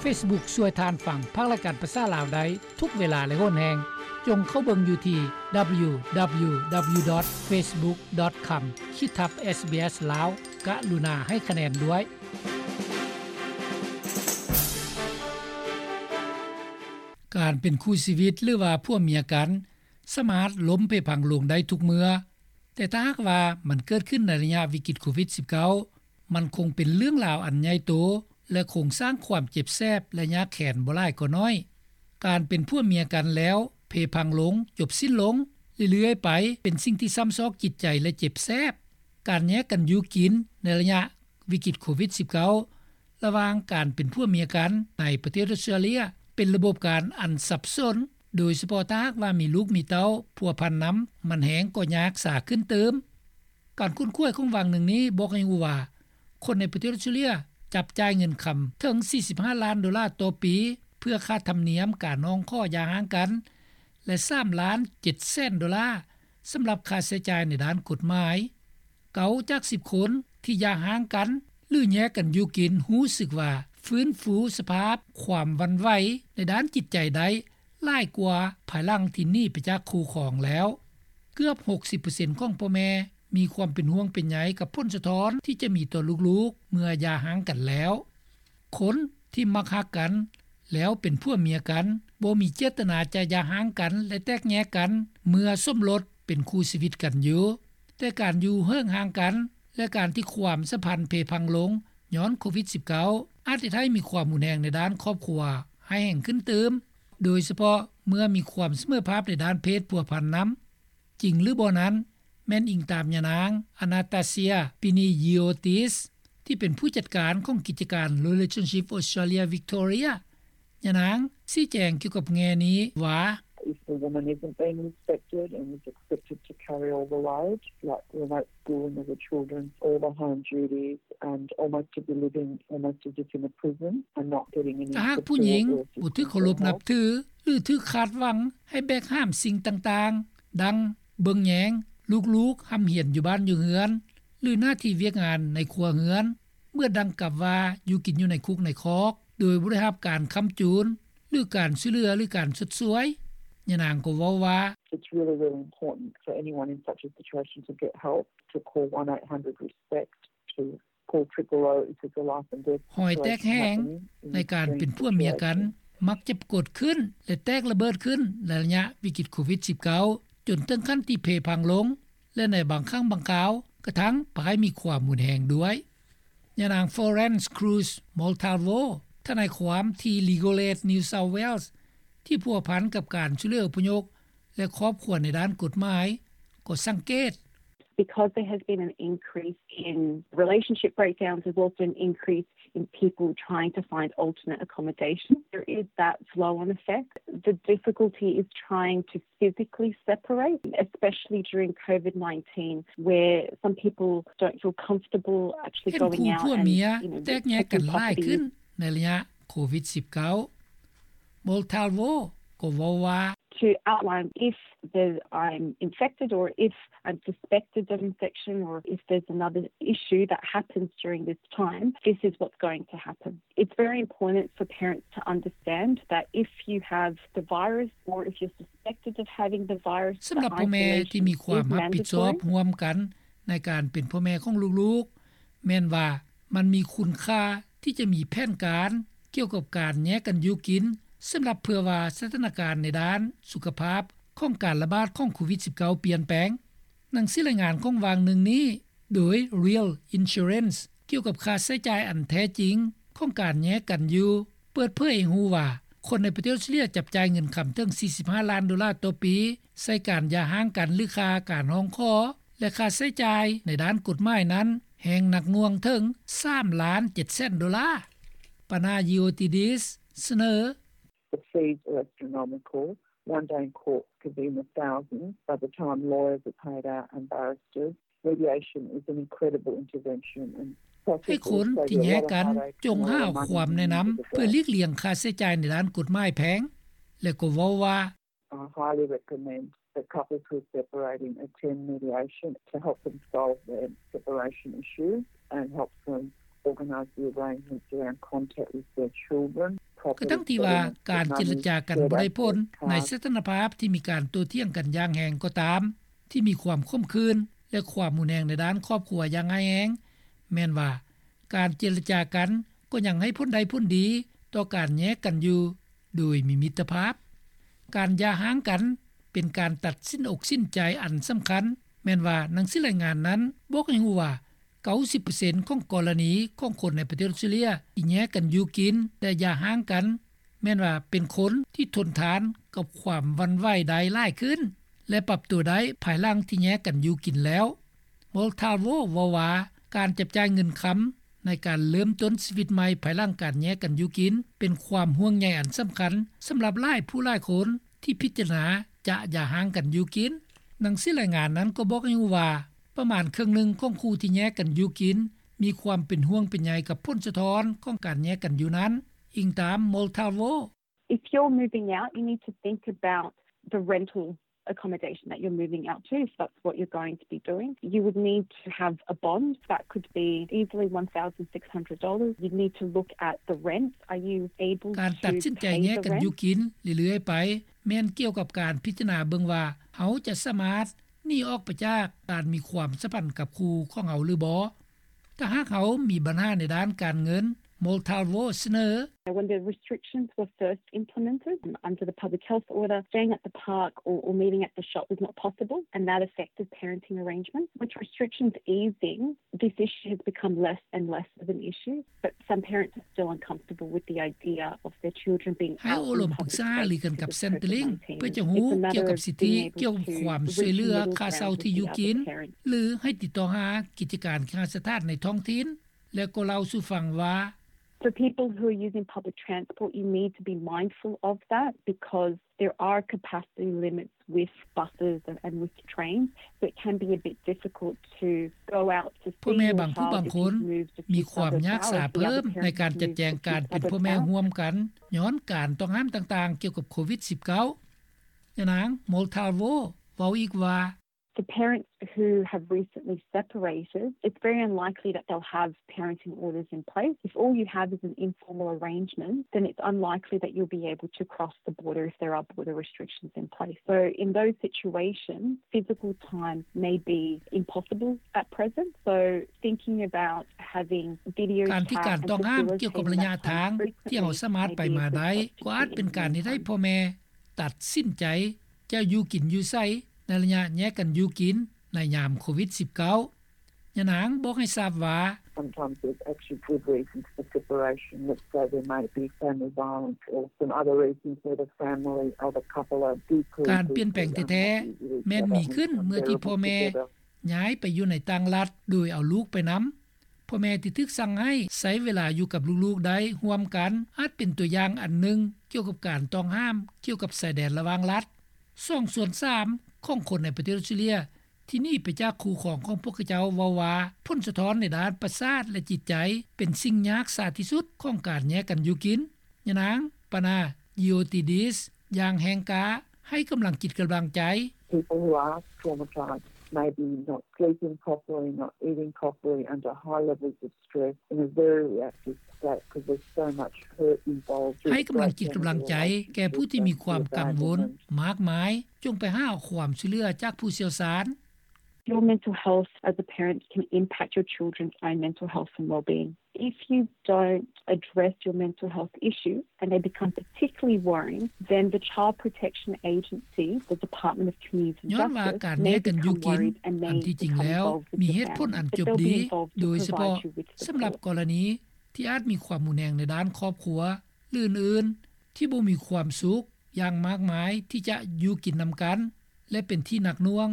Facebook ຊ່ວຍທ່ານຟັງພາກລາຍການພາສາລາວໄດ້ທຸກເວລາ ແລະ ໂຫນແຮງ. ຈົ່ງເຂົ້າເບິ່ງຢູ່ທີ່ www.facebook.com/ SBS Lao ກະລຸນາໃຫ້ຄະແນນດ້ວຍ. ການເປັນຄູ່ຊີວິດ ຫຼືວ່າຜົວເມຍກັນ ສາມາດລົ້ມເພພັງລົງໄດ້ທຸກເມື່ອ, ແຕ່ຖ້າຫາກວ່າມັນເກີດຂຶ້ນໃນໄລຍະວິກິດໂຄວິດ-19, ມັນຄົງເປັນເລື່ອງລາວອັນໃຫຍ່ໂຕ ແລະ ຄົງສ້າງຄວາມເຈັບແສບ ແລະ ຍາກແຄ້ນບໍ່ຫຼາຍກໍໜ້ອຍ. ການເປັນຜົວເມຍກັນແລ້ວເພພັງລົງ, ຈົບສິ້ນລົງເລື້ອຍໆໄປ ເປັນສິ່ງທີ່ຊ້ຳຊອກຈິດໃຈ ແລະ ເຈັບແສບ. ການແຍກກັນຢູ່ກິນໃນໄລຍະວິກິດໂຄວິດ-19 ລະຫວ່າງການເປັນຜົວເມຍກັນໃນປະເທດອອສເຕຣເລຍ ເປັນລະບົບການອັນສັບສົນ, ໂດຍສະເພາະຖ້າຫາກວ່າມີລູກມີເຕົ້າພົວພັນນຳ, ມັນແຮ່ງກໍຍາກສາຂຶ້ນຕື່ມ. ການຄົ້ນຄວ້າຂອງຫວ່າງໜຶ່ງນີ້ບອກໃຫ້ຮູ້ວ່າ ຄົນໃນປະເທດອອສເຕຣເລຍຈັບຈ່າຍເງິນຄຳເຖິງສີ່ສິບຫ້າລ້ານໂດລາຕໍ່ປີ ເພື່ອຄ່າທຳນຽມການຮ້ອງຂໍຢ່າຮ້າງກັນ ແລະ ສາມລ້ານເຈັດແສນໂດລາ ສຳລັບຄ່າໃຊ້ຈ່າຍໃນດ້ານກົດໝາຍ. ເກົ້າຈາກສິບຄົນທີ່ຢ່າຮ້າງກັນ ຫຼື ແຍກກັນຢູ່ກິນ ຮູ້ສຶກວ່າຟື້ນຟູສະພາບຄວາມຫວັ່ນໄຫວໃນດ້ານຈິດໃຈໄດ້ຫຼາຍກວ່າພາຍຫຼັງທີ່ໜີໄປຈາກຄູ່ຄອງແລ້ວ. ເກືອບຫົກສິບເປີເຊັນຂອງພໍ່ແມ່ມີຄວາມເປັນຫ່ວງເປັນໃຍກັບຜົນສະທ້ອນທີ່ຈະມີຕໍ່ລູກໆເມື່ອຢ່າຮ້າງກັນແລ້ວ. ຄົນທີ່ມັກຮັກກັນແລ້ວເປັນຜົວເມຍກັນ ບໍ່ມີເຈດຕະນາຈະຢ່າຮ້າງກັນ ແລະ ແຕກແຍກກັນເມື່ອສົມລົດເປັນຄູ່ຊີວິດກັນຢູ່, ແຕ່ການຢູ່ເຫິ້ງຫ່າງກັນ ແລະ ການທີ່ຄວາມສຳພັນເພພັງລົງຍ້ອນໂຄວິດ-19 ອາດເຮັດໃຫ້ມີຄວາມຮຸນແຮງໃນດ້ານຄອບຄົວຮ້າຍແຮງຂຶ້ນຕື່ມ, ໂດຍສະເພາະເມື່ອມີຄວາມສະເໝີພາບໃນດ້ານເພດພົວພັນນຳ. ຈິງຫຼືບໍ່ນັ້ນ ແມ່ນອີງຕາມຍານາງ Anastasia Piniyotis ທີ່ເປັນຜູ້ຈັດການຂອງກິດຈະການ Relationship Australia Victoria. ຍານາງຊີ້ແຈງກ່ຽວກັບແງ່ນີ້ວ່າ If the woman isn't being respected and is expected to carry all the load, like remote schooling of the children, all the home duties, and almost to be living almost as if in a prison and not getting any support or assistance at all. ຖ້າຫາກຜູ້ຍິງບໍ່ຖືກເຄົາລົບນັບຖື ຫຼື ຖືກຄາດຫວັງໃຫ້ແບກຫາມສິ່ງຕ່າງໆ ດັ່ງເບິ່ງແຍງລູກໆຮ່ຳຮຽນຢູ່ບ້ານຢູ່ເຮືອນ ຫຼື ໜ້າທີ່ວຽກງານໃນຄົວເຮືອນ, ເໝືອນດັ່ງກັບວ່າຢູ່ກິນຢູ່ໃນຄຸກໃນຄອກ ໂດຍບໍ່ໄດ້ຮັບການຄ້ຳຈູນ ຫຼື ການຊ່ວຍເຫຼືອ ຫຼື ການຊົດຊ່ວຍ. ຍານາງກໍເວົ້າວ່າ It's really, really important for anyone in such a situation to get help, to call one eight hundred respect, to call triple O if there's a life and death situation happening in extreme situations. ຮອຍແຕກແຫ້ງໃນການເປັນຜົວເມຍກັນມັກຈະປາກົດຂຶ້ນ ແລະ ແຕກລະເບີດຂຶ້ນໃນໄລຍະວິກິດໂຄວິດ-19 ຈົນເຖິງຂັ້ນທີ່ເພພັງລົງ ແລະ ໃນບາງຄັ້ງບາງຄາວກະທັ້ງພາໃຫ້ມີຄວາມຮຸນແຮງດ້ວຍ. ຍານາງ Florence Cruz Montalvo ທະນາຍຄວາມທີ່ Legal Aid New South Wales ທີ່ພົວພັນກັບການຊ່ວຍເຫຼືອອົບພະຍົບ ແລະ ຄອບຄົວໃນດ້ານກົດໝາຍ ກໍສັງເກດ Because there has been an increase in relationship breakdowns, there's also an increase in people trying to find alternate accommodation. There is that flow-on effect. The difficulty is trying to physically separate, especially during COVID nineteen, where some people don't feel comfortable actually going out and, you know, taking properties. ເຫັນຄູ່ຜົວເມຍແຕກແຍກກັນຫຼາຍຂຶ້ນໃນໄລຍະໂຄວິດ-19. Montalvo ກໍເວົ້າວ່າ To outline if there's, I'm infected or if I'm suspected of infection or if there's another issue that happens during this time, this is what's going to happen. It's very important for parents to understand that if you have the virus or if you're suspected of having the virus, the isolation is mandatory. ສຳລັບພໍ່ແມ່ທີ່ມີຄວາມຮັບຜິດຊອບຮ່ວມກັນໃນການເປັນພໍ່ແມ່ຂອງລູກໆ ແມ່ນວ່າມັນມີຄຸນຄ່າທີ່ຈະມີແຜນການກ່ຽວກັບການແຍກກັນຢູ່ກິນ ສຳລັບເພື່ອວ່າສະຖານະການໃນດ້ານສຸຂະພາບຂອງການລະບາດຂອງໂຄວິດ-19 ປ່ຽນແປງ. ໜັງສືລາຍງານຂອງຫວ່າງໜຶ່ງນີ້ ໂດຍ Real Insurance ກ່ຽວກັບຄ່າໃຊ້ຈ່າຍອັນແທ້ຈິງຂອງການແຍກກັນຢູ່ ເປີດເຜີຍໃຫ້ຮູ້ວ່າ ຄົນໃນປະເທດອອສເຕຣເລຍຈັບຈ່າຍເງິນຄຳເຖິງສີ່ສິບຫ້າລ້ານໂດລາຕໍ່ປີ ໃສ່ການຢ່າຮ້າງກັນ ຫຼື ຄ່າການຮ້ອງຂໍ ແລະ ຄ່າໃຊ້ຈ່າຍໃນດ້ານກົດໝາຍນັ້ນ ແຮ່ງໜັກໜ່ວງເຖິງສາມລ້ານເຈັດແສນໂດລາ. Panayotides ສະເໜີ The fees are astronomical. One day in court could be in the thousands by the time lawyers are paid out and barristers. Mediation is an incredible intervention and ໃຫ້ຄົນທີ່ແຍກກັນຈົ່ງຫາຄວາມແນະນຳເພື່ອຫຼີກລ່ຽງຄ່າໃຊ້ຈ່າຍໃນດ້ານກົດໝາຍແພງ ແລະ ກໍເວົ້າວ່າ I highly recommend that couples who are separating attend mediation to help them solve their separation issues and help them organise the arrangements around contact with their children, ກະທັ່ງທີ່ວ່າການເຈລະຈາກັນບໍ່ໄດ້ຜົນ ໃນສະຖານະພາບທີ່ມີການໂຕ້ຖຽງກັນຢ່າງແຮງກໍຕາມ, ທີ່ມີຄວາມຂົມຂືນ ແລະ ຄວາມຮຸນແຮງໃນດ້ານຄອບຄົວຢ່າງຮ້າຍແຮງ, ແມ່ນວ່າການເຈລະຈາກັນກໍຍັງໃຫ້ຜົນໄດ້ຜົນດີຕໍ່ການແຍກກັນຢູ່ໂດຍມີມິດຕະພາບ. ການຢ່າຮ້າງກັນເປັນການຕັດສິນອົກສິນໃຈອັນສຳຄັນ, ແມ່ນວ່າໜັງສືລາຍງານນັ້ນບອກໃຫ້ຮູ້ວ່າ ເກົ້າສິບເປີເຊັນຂອງກໍລະນີຂອງຄົນໃນປະເທດອອສເຕຣເລຍທີ່ແຍກກັນຢູ່ກິນ ແລະ ຢ່າຮ້າງກັນ ແມ່ນວ່າເປັນຄົນທີ່ທົນທານກັບຄວາມຫວັ່ນໄຫວໄດ້ຫຼາຍຂຶ້ນ ແລະ ປັບຕົວໄດ້ພາຍຫຼັງທີ່ແຍກກັນຢູ່ກິນແລ້ວ. Montalvo ເວົ້າວ່າ ການຈັບຈ່າຍເງິນຄຳໃນການເລີ່ມຕົ້ນຊີວິດໃໝ່ພາຍຫຼັງການແຍກກັນຢູ່ກິນ ເປັນຄວາມຫ່ວງໃຍອັນສຳຄັນສຳລັບຫຼາຍຜູ້ຫຼາຍຄົນທີ່ພິຈາລະນາຈະຢ່າຮ້າງກັນຢູ່ກິນ. ໜັງສືລາຍງານນັ້ນກໍບອກໃຫ້ຮູ້ວ່າ ປະມານເຄິ່ງໜຶ່ງຂອງຄູ່ທີ່ແຍກກັນຢູ່ກິນ ມີຄວາມເປັນຫ່ວງເປັນໃຍກັບຜົນສະທ້ອນຂອງການແຍກກັນຢູ່ນັ້ນ, ອີງຕາມ Montalvo. If you're moving out, you need to think about the rental accommodation that you're moving out to, if that's what you're going to be doing. You would need to have a bond that could be easily one thousand six hundred dollars. You'd need to look at the rent. Are you able to pay the rent? ການຕັດສິນໃຈແຍກກັນຢູ່ກິນເລື້ອຍໆໄປ ແມ່ນກ່ຽວກັບການພິຈາລະນາເບິ່ງວ່າ ເຮົາຈະສາມາດໜີອອກໄປຈາກການມີຄວາມສຳພັນກັບຄູ່ຂອງເຮົາຫຼືບໍ່. ຖ້າຫາກເຮົາມີບັນຫາໃນດ້ານການເງິນ, Montalvo ສະເໜີ. When the restrictions were first implemented, um, under the public health order, staying at the park or, or meeting at the shop was not possible, and that affected parenting arrangements. With restrictions easing, this issue has become less and less of an issue, but some parents are still uncomfortable with the idea of their children being out in public spaces for ໃຫ້ໂອ້ລົມປຶກສາຫາລືກັນກັບ Centrelink ເພື່ອຈະຮູ້ກ່ຽວກັບສິດທິກ່ຽວກັບຄວາມຊ່ວຍເຫຼືອຄ່າເຊົ່າທີ່ຢູ່ກິນ ຫຼື ໃຫ້ຕິດຕໍ່ຫາກິດຈະການເຄຫະສະຖານໃນທ້ອງຖິ່ນ ແລະ ກໍເລົ່າສູ່ຟັງວ່າ. For people who are using public transport, you need to be mindful of that because there are capacity limits with buses and, and with trains, so it can be a bit difficult to go out to see your child if you've moved a few suburbs out or if the other parent has moved a few suburbs out. ພໍ່ແມ່ບາງຜູ້ບາງຄົນມີຄວາມຍາກສາເພີ່ມໃນການຈັດແຈງການເປັນພໍ່ແມ່ຮ່ວມກັນ ຍ້ອນການຕ້ອງຫ້າມຕ່າງໆກ່ຽວກັບໂຄວິດສິບເກົ້າ. ຍານາງ Montalvo ເວົ້າອີກວ່າ. For parents who have recently separated, it's very unlikely that they'll have parenting orders in place. If all you have is an informal arrangement, then it's unlikely that you'll be able to cross the border if there are border restrictions in place. So in those situations, physical time may be impossible at present. So thinking about having video chat and facilitating that time frequently may be a good option for you in that circumstance. ການທີ່ການຕ້ອງຫ້າມກ່ຽວກັບໄລຍະທາງທີ່ເຮົາສາມາດໄປມາໄດ້ ກໍອາດເປັນການເຮັດໃຫ້ພໍ່ແມ່ຕັດສິນໃຈ ຈະຢູ່ກິນຢູ່ໃສໃນໄລຍະແຍກກັນຢູ່ກິນໃນຍາມໂຄວິດສິບເກົ້າ. ຍານາງບອກໃຫ້ຊາບວ່າ. Sometimes there's actually good reasons for separation. Let's say there may be family violence or some other reasons where the family or the couple are deeply, deeply unhappy with each other and, and there are reasons for that. ການປ່ຽນແປງແທ້ໆແມ່ນມີຂຶ້ນເມື່ອທີ່ພໍ່ແມ່ຍ້າຍໄປຢູ່ໃນຕ່າງລັດໂດຍເອົາລູກໄປນຳ. ພໍ່ແມ່ທີ່ຖືກສັ່ງໃຫ້ໃຊ້ເວລາຢູ່ກັບລູກໆໄດ້ຮ່ວມກັນ ອາດເປັນຕົວຢ່າງອັນໜຶ່ງກ່ຽວກັບການຕ້ອງຫ້າມກ່ຽວກັບຊາຍແດນລະຫວ່າງລັດ. ສອງສ່ວນສາມຂອງຄົນໃນປະເທດອອສເຕຣເລຍທີ່ໜີໄປຈາກຄູ່ຄອງຂອງພວກເຂົາເຈົ້າເວົ້າວ່າ ຜົນສະທ້ອນໃນດ້ານປະສາດ ແລະ ຈິດໃຈເປັນສິ່ງຍາກສາທີ່ສຸດຂອງການແຍກກັນຢູ່ກິນ. ຍານາງ Pana Giotidis ຢ່າງແຮງກ້າໃຫ້ກຳລັງຈິດກຳລັງໃຈ. People who are traumatised, maybe not sleeping properly, not eating properly, under high levels of stress, in a very reactive state, 'cause there's so much hurt involved. ໃຫ້ກຳລັງຈິດກຳລັງໃຈແກ່ຜູ້ທີ່ມີຄວາມກັງວົນມາກມາຍ, ຈົ່ງໄປຫາຄວາມຊ່ວຍເຫຼືອຈາກຜູ້ຊ່ຽວຊານ. Your mental health as a parent can impact your children's own mental health and well-being. If you don't address your mental health issue and they become particularly worrying, then the Child Protection Agency, the Department of Community and Justice, may become worried and may become involved with the family. But they'll be involved to provide you with support. ຍ້ອນວ່າການແຍກກັນຢູ່ກິນ ອັນທີ່ຈິງແລ້ວມີເຫດຜົນອັນຈົບດີ ໂດຍສະເພາະສຳລັບກໍລະນີທີ່ອາດມີຄວາມຮຸນແຮງໃນດ້ານຄອບຄົວ ຫຼື ອື່ນໆ ທີ່ບໍ່ມີຄວາມສຸກຢ່າງມາກມາຍທີ່ຈະຢູ່ກິນນຳກັນ ແລະ ເປັນທີ່ໜັກໜ່ວງ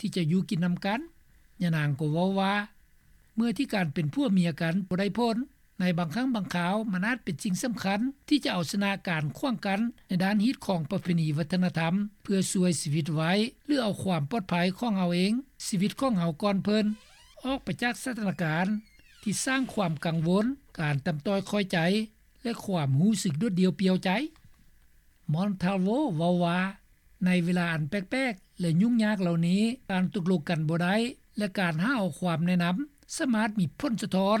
ທີ່ຈະຢູ່ກິນນຳກັນ. ຍານາງກໍເວົ້າວ່າ ເມື່ອທີ່ການເປັນຜົວເມຍກັນບໍ່ໄດ້ຜົນ, ໃນບາງຄັ້ງບາງຄາວມັນອາດເປັນສິ່ງສຳຄັນທີ່ຈະເອົາຊະນະການຂວາງກັ້ນໃນດ້ານຮີດຄອງປະເພນີວັດທະນະທຳ ເພື່ອຊ່ວຍຊີວິດໄວ້ ຫຼື ເອົາຄວາມປອດໄພຂອງເຮົາເອງ, ຊີວິດຂອງເຮົາກ່ອນເພິ່ນ, ອອກໄປຈາກສະຖານະການທີ່ສ້າງຄວາມກັງວົນ, ການຕ່ຳຕ້ອຍຂ້ອຍໃຈ ແລະ ຄວາມຮູ້ສຶກໂດດດ່ຽວປ່ຽວໃຈ. Montalvo ເວົ້າວ່າ ໃນເວລາອັນແປກໆ ແລະ ຫຍຸ້ງຍາກເຫຼົ່ານີ້, ການຕົກລົງກັນບໍ່ໄດ້ ແລະ ການຫາເອົາຄວາມແນະນຳ ສາມາດມີຜົນສະທ້ອນ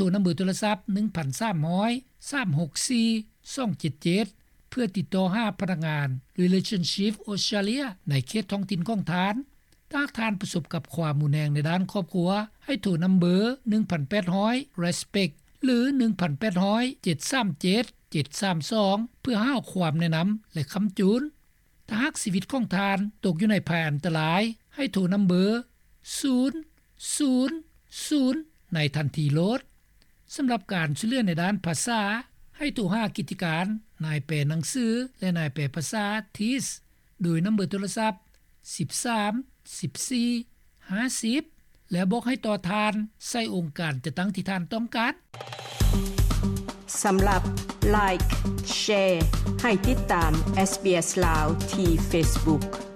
ນຳເບີໂທລະສັບ ໜຶ່ງພັນສາມຮ້ອຍ ສາມຫົກສີ່ ສອງເຈັດເຈັດ ເພື່ອຕິດຕໍ່ຫາພະນັກງານ Relationship Australia ໃນເຂດທ້ອງຖິ່ນຂອງທ່ານ. ຖ້າທ່ານປະສົບກັບຄວາມຮຸນແຮງໃນດ້ານຄອບຄົວ, ໃຫ້ໂທນຳເບີ ໜຶ່ງພັນແປດຮ້ອຍ Respect ຫຼື ໜຶ່ງພັນແປດຮ້ອຍ ເຈັດສາມເຈັດ ເຈັດສາມສອງ ເພື່ອຫາຄວາມແນະນຳ ແລະ ຄ້ຳຈູນ. ຖ້າຫາກຊີວິດຂອງທ່ານຕົກຢູ່ໃນໄພອັນຕະລາຍ, ໃຫ້ໂທນຳເບີ ສູນ ສູນ ສູນ ໃນທັນທີໂລດ. ສຳລັບການຊ່ວຍເຫຼືອໃນດ້ານພາສາ, ໃຫ້ໂທຫາກິດຈະການນາຍແປໜັງສື ແລະ ນາຍແປພາສາ TEES ໂດຍນຳເບີໂທລະສັບ ສິບສາມ ສິບສີ່ ຫ້າສິບ ແລະ ບອກໃຫ້ຕໍ່ທ່ານໃສ່ອົງການຈັດຕັ້ງທີ່ທ່ານຕ້ອງການ. ສຳລັບ Like Share ໃຫ້ຕິດຕາມ SBS ລາວ ທີ່ Facebook.